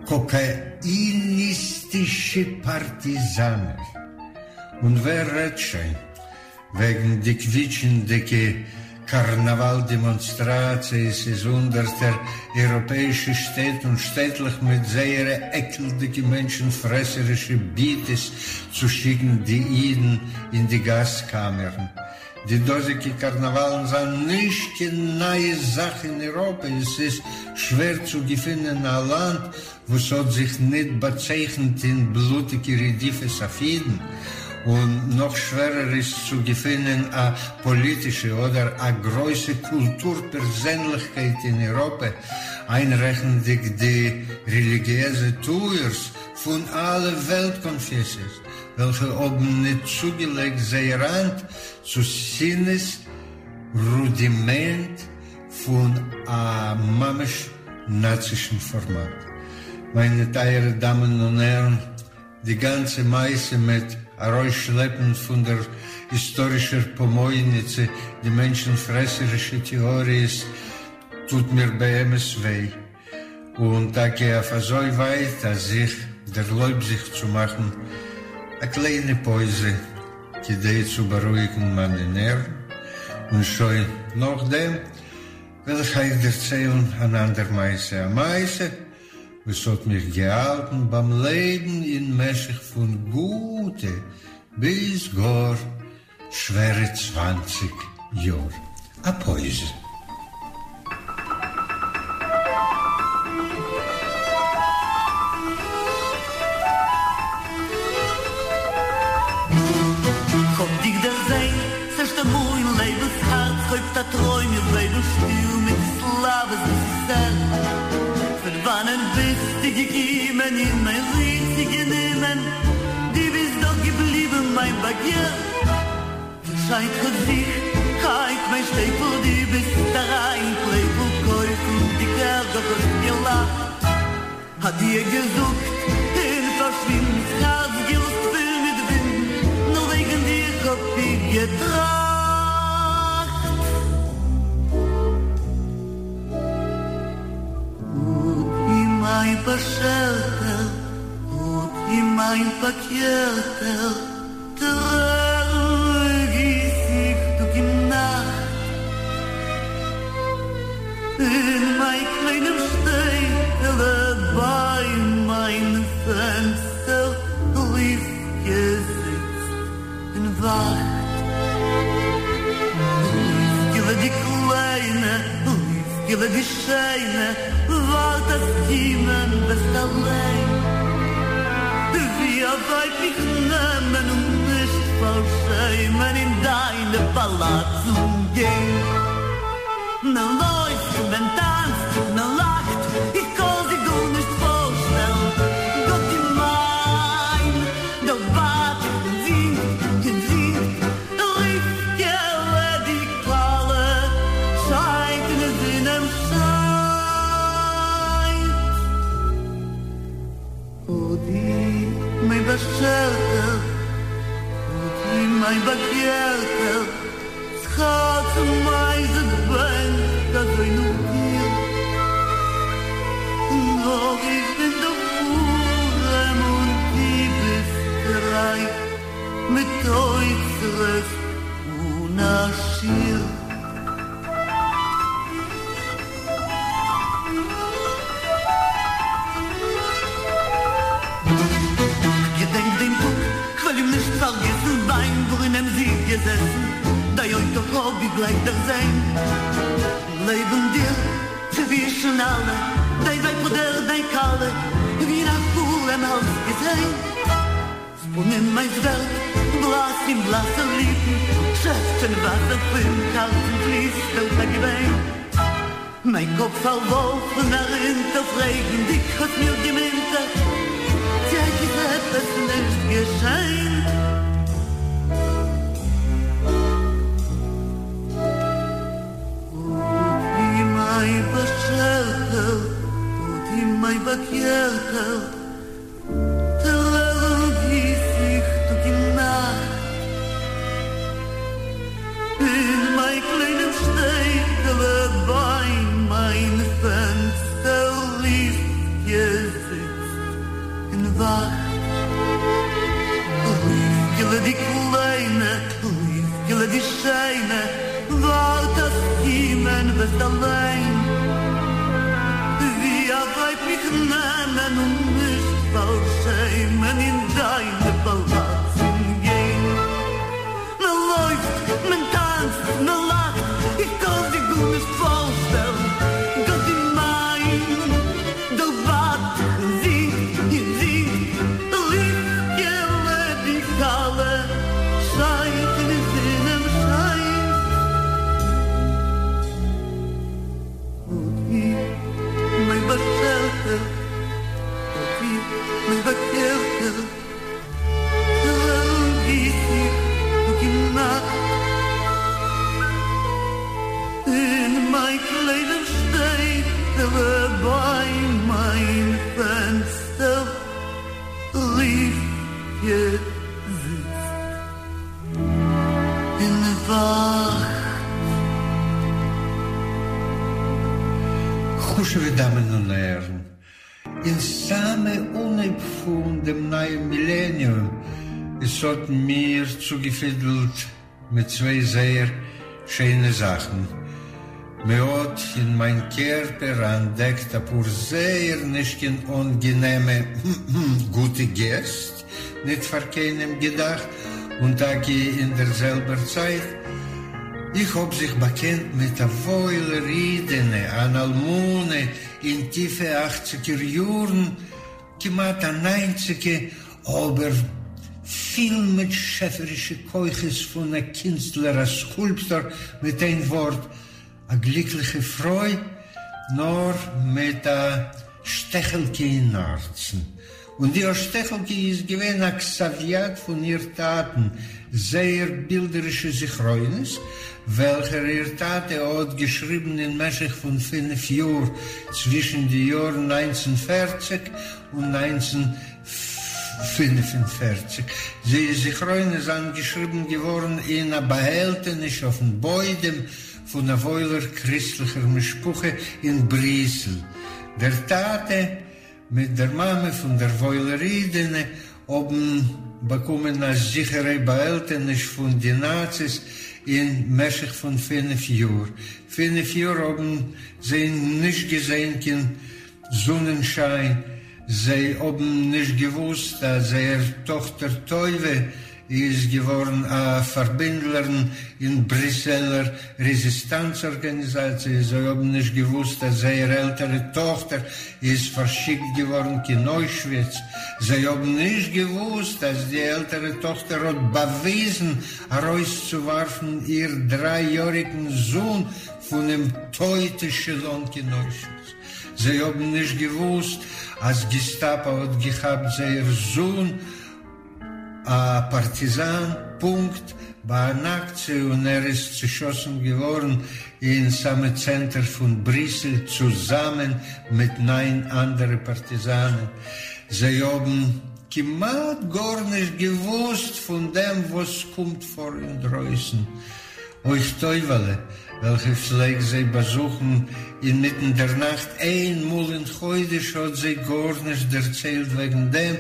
קאקאיניסטישע פארטיזאנער. און ווער רעדט שוין וועגן די קוויטשענדיגע קארנאוואל דעמאנסטראציעס אין הונדערטער אייראפעאישע שטעט און שטעטלעך מיט זייערע עקלדיגע מענטשן פרעסערישע ביטעס צו שיקן די אידן אין די גאז קאמערן. די דאזיגע קארנאוואלן זענען נישט קיין נייע זאך אין אייראפע, עס איז שווער צו געפינען א לאנד וואס האט זיך ניט באצייכנט אין בלוטיגע רדיפות אויף אידן, און נאך שווערער איז צו געפינען א פאליטישע אדער א גרויסע קולטור פערזענליכקייט אין אייראפע, איינרעכנדיג די רעליגיעזע טוערס פון אלע וועלט קאנפעסיעס, וועלכע האבן ניט צוגעלייגט זייער האנט צו שנאה'ס רודימענט פון א ממש נאצישן פארמאט. מיינע טייערע דאמען און הערן, די גאנצע מעשה מיט ארויסשלעפן פון דער היסטארישער פאמויניצע די מענטשן-פרעסערישע טעאריעס טוט מיר באמת וויי, און טאקע אויף אזוי ווייט אז איך דערלויב זיך צו מאכן א קליינע פויזע כדי צו בארואיגן מיינע נערוון, און שוין נאכדעם וועל איך אייך דערציילן אן אנדער מעשה, א מעשה וואס האט מיך געהאלטן ביים לעבן אין משך פון גוטע ביז גאר שווערע צוואנציג יאר. א פויזע. כ'האב דיך דערזען ס'ערשטע מאל אין לעבן ס'הארץ הויבט א טרוים איך בעבל שטיל מיט סלאוועס וואס איז ער פון וואנען ביסטו געקומען אין מיין ריר זיך גענומען דו ביסט דאך געבליבן מיין באגער שיינט געזיכט היינט מיין שטעטל דו ביסט אריין פלעפל קויפן די קערדאך האסט געלאכט אדיא געזאגט און פארשווינדן ס'הארץ געלאזט פול מיט ווינדן נאר וועגן דיר האב איך געטראכט. באשערטער, און מיין פאקערטער, טרערן גיס איך טאג און נאכט. אין מיין קליינעם שטעטעלע ביי מיין פענסטער רבקה זיצט און וואכט. רבקה'לע די קליינע, רבקה'לע די שיינע, ווארט אז קומען וועסט אליין. ווי א ווייב מיך נעמען און נישט פארשעמען אין דיינע פאלאצן גיין. מען לויפט, מען טאנצט, מען לאכט, איך קאן זיך גארנישט פארשטעלן, גאט איז מיין, דער בדחן זינגט און זינגט, רבקה'לע די כלה שיינט און די זון עם שיינט. אוי דו מיין באשערטער, אוי דו מיין באגערטער, ס'הארץ מיינס בענקט אזוי נאך דיר, נאר איך בין דאך ארעם און דו ביסט רייך, מיט אוצרות אן א שיעור. כ'געדענק דעם טאג, כ'וועל אים נישט פארגעסן, ביים ברונעם זי איז געזעסן, דיין אויטא האב איך גלייך דערזען, לעבן דיר צווישן אלע, דיין ווייב אדער דיין כלה, ווי אין א חלום אלץ געזען. ס'פּנים מײַנס ווערט בלאַס אין בלאַסע ליפּן, שעפּטשען וואַסער פֿון האַרצן פֿליסט אויס אַ געוויין. מײַן קאָפּ פֿאַרוואָרפֿן אַרונטער, פֿרעגנדיק האָט מיר געמינטערט, צי אײַך איז עפּעס נישט געשען? אוי, מײַן באַשערטער, אוי, מײַן באַגערטער, טרערן גיס איך טאג און נאכט אין מיין קליינעם שטעטעלע ביי מיין פענסטער רבקה זיצט און וואכט. רבקה'לע די קליינע, רבקה'לע די שיינע, ווארט אז קומען וועסט אליין. ווי א ווייב מיך נעמען און נישט פארשעמען אין דיינע פאלאצן גיין. מען לויפט, מען טאנצט, מען לאכט, איך קאן זיך גארנישט פארשטעלן, גאט איז מיין, דער בדחן זינגט און זינגט, רבקה'לע די כלה שיינט און די זון עם שיינט. אוי מיין באשערטער, אוי מיין באגערטער, טרערן גיס איך טאג און נאכט. אין מיין קליינעם שטעטעלע ביי מיין פענסטער רבקה זיצט און וואכט. חשוב'ע דאמען און הערן, אין סאמע אנהייב פון דעם נייעם מילעניום, עס האט מיר צוגעפידלט מיט צוויי זייער שיינע זאכן, מ'האט אין מיין קערפער אנטדעקט אפאר זייער נישט קיין אנגענעמע גוטע געסט, ניט פאר קיינעם געדאכט, און טאקע אין דער זעלבער צייט, איך האב זיך באקענט מיט א וואוילער אידענע, אן אלמנה אין טיפע אכציגער יארן, כמעט א ניינציגע, אבער פיל מיט שעפערישע כוחות פון א קינסטלער, א סקולפטאר, מיט איין ווארט, א גליקליכע פרוי, נאר מיט א שטעכעלקע אין הארצן. און די שטעכעלקע איז געווען א כתב-יד פון איר טאטן, זייער בילדערישע זכרונות, וועלכער איר טאטע האט געשריבן אין משך פון פינף יאר, צווישן די יארן 1940 און 1945. די זכרונות זענען געשריבן געווארן אין א באהעלטעניש אויפן בוידעם פון א וואוילער קריסטליכער משפחה אין בריסל. דער טאטע. מיט דער מאמע פון דער וואוילער אידענע האבן באקומען א זיכערע באהעלטעניש פון די נאציס אין משך פון פינף יאר. פינף יאר האבן זיי נישט געזען קיין זונענשיין, זיי האבן נישט געוואוסט אז זייער טאכטער טויבע איז געווארן א פארבינדלערין אין בריסעלער רעזיסטאנץ ארגאניזאציע, זיי האבן נישט געוואוסט אז זייער עלטערע טאכטער איז פארשיקט געווארן קיין אוישוויץ, זיי האבן נישט געוואוסט אז די עלטערע טאכטער האט באוויזן ארויסצואווארפן איר דריי יאריגן זון פונעם טויט עשעלאן קיין אוישוויץ, זיי האבן נישט געוואוסט אז געסטאפא האט געכאפט זייער זון א פארטיזאן פונקט ביי אן אקציע און ער איז צעשאסן געווארן אין סאמע צענטער פון בריסל צוזאמען מיט ניין אנדערע פארטיזאנען. זיי האבן כמעט גארנישט געוואוסט פון דעם וואס קומט פאר אינדרויסן. אויך טויבעלע, וועלכע פלעגט זיי באזוכן אינמיטן דער נאכט איין מאל אין חודש, האט זיי גארנישט דערציילט וועגן דעם,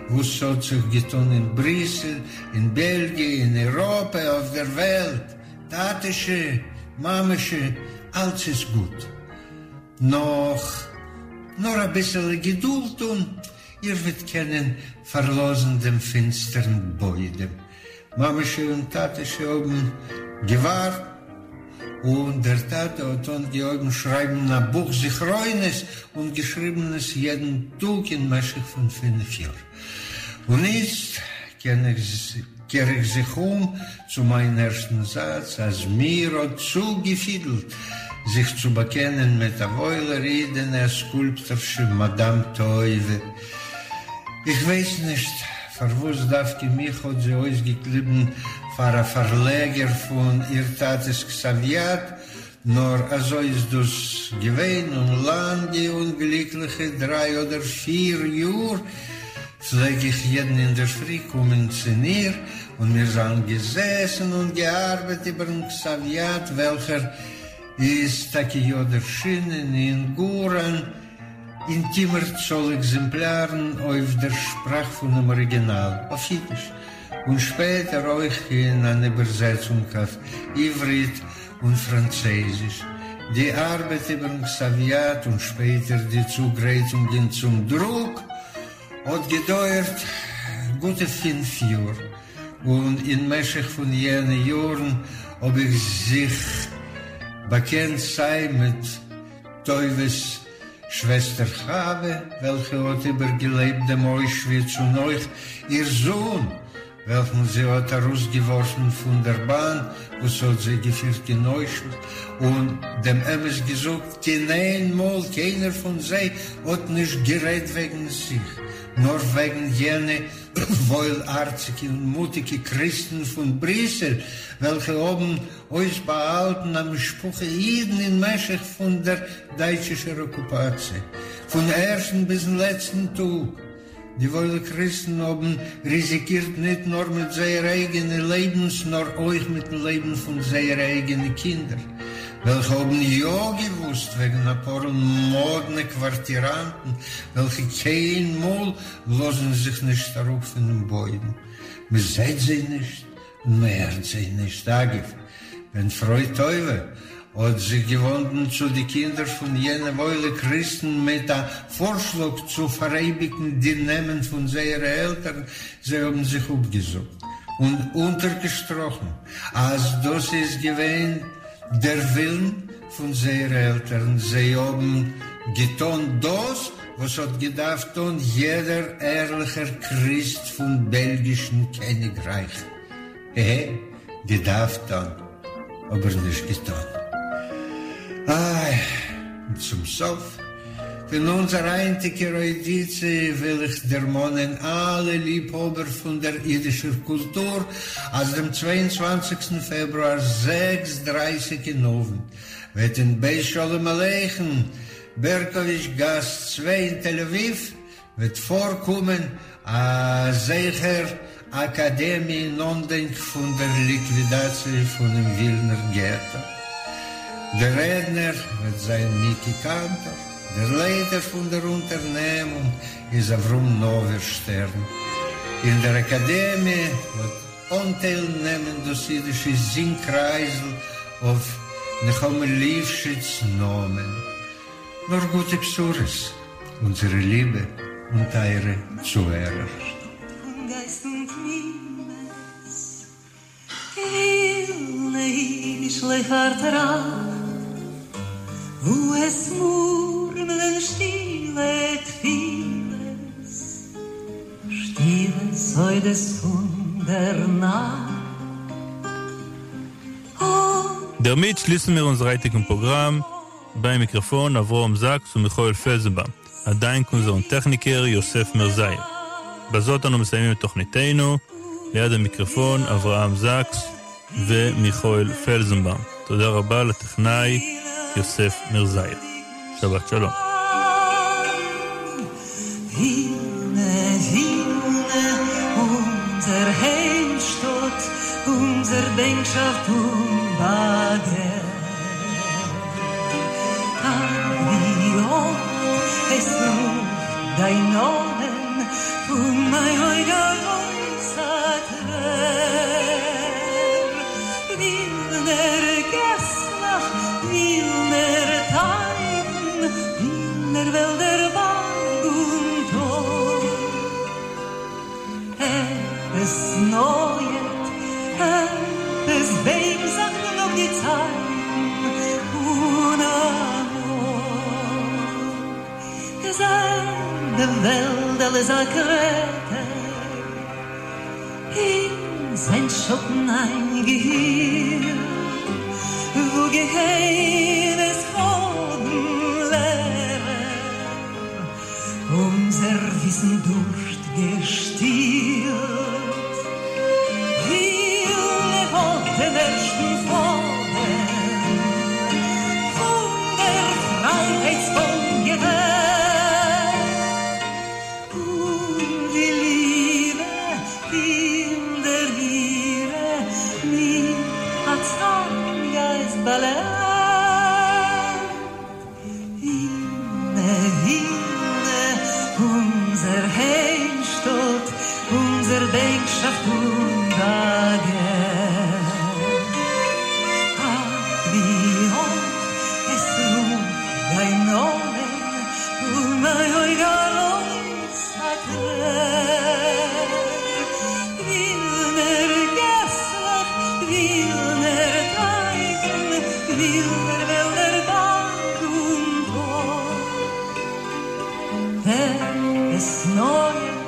וואס ס'האט זיך געטאן אין בריסל, אין בעלגיע, אין אייראפע, אויף דער וועלט. טאטעשע, מאמעשע, אלץ איז גוט. נאך נאר אביסעלע געדולד און איר וועט קענען פארלאזן דעם פינסטערן בוידעם. מאַמעשי און טאַטעשי האָבן געוואַרט, און דער טאַטע האָט אָנגעהויבן שרײַבן אַ בוך זכרונות און געשריבן עס יעדן טאָג אין משך פֿון פֿינף יאָר. און איצט קער איך זיך אום צו מײַן ערשטן זאַץ, אַז מיר האָט צוגעפֿידלט זיך צו באַקענען מיט אַ וואוילער אידענע, אַ סקולפּטאָרשע, מאַדאַם טויבע. איך ווייס נישט פארוואס דווקא מיך האט זי אויסגעקליבן פאר א פארלעגער פון איר טאטע'ס כתב-יד, נאר אזוי איז דאס געווען, און לאנגע און גליקליכע דריי אדער פיר יאר פלעג איך יעדן אינדערפרי קומען צו איר, און מיר זיינען געזעסן און געארבעט איבער'ן כתב-יד וועלכער איז טאקע יא ערשינען אין גאר אן אינטימער צאל עקזעמפלארן אויף דער שפראך פונעם אריגינאל, אויף אידיש, און שפעטער אויך אין אן איבערזעצונג אויף עברית און פראנצייזיש. די ארבעט איבערן כתב-יד און שפעטער די צוגרייטונגען צום דרוק האט געדויערט גוטע פינף יאר, און אין משך פון יענע יארן האב איך זיך באקענט סיי מיט טויבעס שוועסטער חוה, וועלכע האט איבערגעלעבט דעם אוישוויץ, און אויך איר זון, וועלכן זי האט ארויסגעווארפן פון דער באן וואס האט זיי געפירט קיין אוישוויץ, און דעם אמת געזאגט, קיין איין מאל קיינער פון זיי האט נישט גערעדט וועגן זיך, נאר וועגן יענע וואוילהארציגע און מוטיגע קריסטן פון בריסל, וועלכע האבן אויסבאהאלטן א משפחה אידן אין משך פון דער דייטשישער אקופאציע, פון ערשטן ביזן לעצטן טאג. די וואוילע קריסטן האבן ריזיקירט ניט נאר מיט זייערע אייגענע לעבנס, נאר אויך מיטן לעבן פון זייערע אייגענע קינדער, וועלכע האבן יא געוואוסט וועגן א פאר מאדנע קווארטיראנטן, וועלכע קיינמאל לאזן זיך נישט אראפ פונעם בוידעם. מ'זעט זיי נישט און מ'הערט זיי נישט. אגב, ווען פרוי טויבע האט זיך געוואנדן צו די קינדער פון יענע וואוילע קריסטן מיט א פארשלאג צו פאראייביגן די נעמען פון זייערע עלטערן, זיי האבן זיך אפגעזאגט און אונטערגעשטראכן אז דאס איז געווען דער ווילן פון זייערע עלטערן, זיי האבן געטאן דאס וואס האט געדארפט טאן יעדער ערליכער קריסט פון בעלגישן קעניגרייך. ע, געדארפט טאן, אבער נישט געטאן. איי, און צום סוף פון אונזער היינטיגער אוידיציע וויל איך דערמאנען אלע ליבהאבער פון דער אידישער קולטור אז דעם צוויי און צוואנציגסטן פעברואר זעקס דרייסיג אין אוונט וועט אין בית שלום עליכם, בערקאוויטש גאס צוויי אין תל אביב, וועט פארקומען א זכר אקאדעמיע אין אנדענק פון דער ליקווידאציע פונעם ווילנער געטא. דער רעדנער וועט זיין מיקי קאנטאר. דער לייטער פון דער אונטערנעמונג איז אברהם נאווערשטערן. אין דער אקאדעמיע האט אנטייל נעמען דאס אידישע זינג-קרייזל אויף נחמה ליפשיץ נאמען. נאר גוטע בשורות, אונזערע ליבע און טייערע צוהערער. פון גייסט און תמימות, ווילנע אידישלעך פארטראכט, וואו עס מורמלען שטילע תפילות, שטילע סודות פון דער נאכט. דערמיט שליסן מיר אונזער היינטיגן פראגראם. ביים מיקראפאן אברהם זאקס ומיכאל פלזנבאום, א דאנק אונזערן טעכניקער יוסף מרזאיעוו. בזאת אנו מסיימים את תוכניתנו, ליד המיקרופון אברהם זאקס ומיכאל פלזנבאום. תודה רבה לטכנאי יוסף מרזאיעוו. שבת שלום. ווילנע, ווילנע, אונזער היימשטאט, אונזער בענקשאפט און באגער. אַך, ווי אָפט עס רופט דיין נאָמען פון מיין אויג אַרויס אַ טרער. ווילנער געסלעך, ווילנער טייכן, ווילנער וועלדער, באַרג און טאָל. עפּעס נויעט, עפּעס בענקט זיך נאָך די צייטן פון אַמאָל. זע, דעם וועלדל איז אַ קרעטער אין זיין שאָטן איינגעהילט, וואו געהיימעס האָבן לערער אונזער וויסן דורשט געשטילט. ווילנע האָט דעם ערשטן פאָדעם פון דער פרייהייטס-פאָן געוועבט, און די ליבע אין דער אירע מיט אַ צאַרטן גייסט באַלעבט. ווילנע, ווילנע, אונזער היימשטאָט, אונזער בענקשאַפט און באַגער. אַך, ווי אָפט עס רופט דיין נאָמען פון מיין אויג אַרויס אַ טרער. ווילנער געסלעך, ווילנער טייכן, ווילנער וועלדער, באַרג און טאָל. עפּעס נויעט,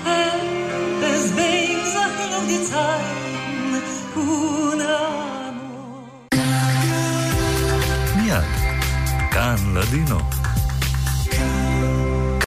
עפּעס בענקט זיך נאָך די צייטן פון אַמאָל. מיד, כאן לדינו.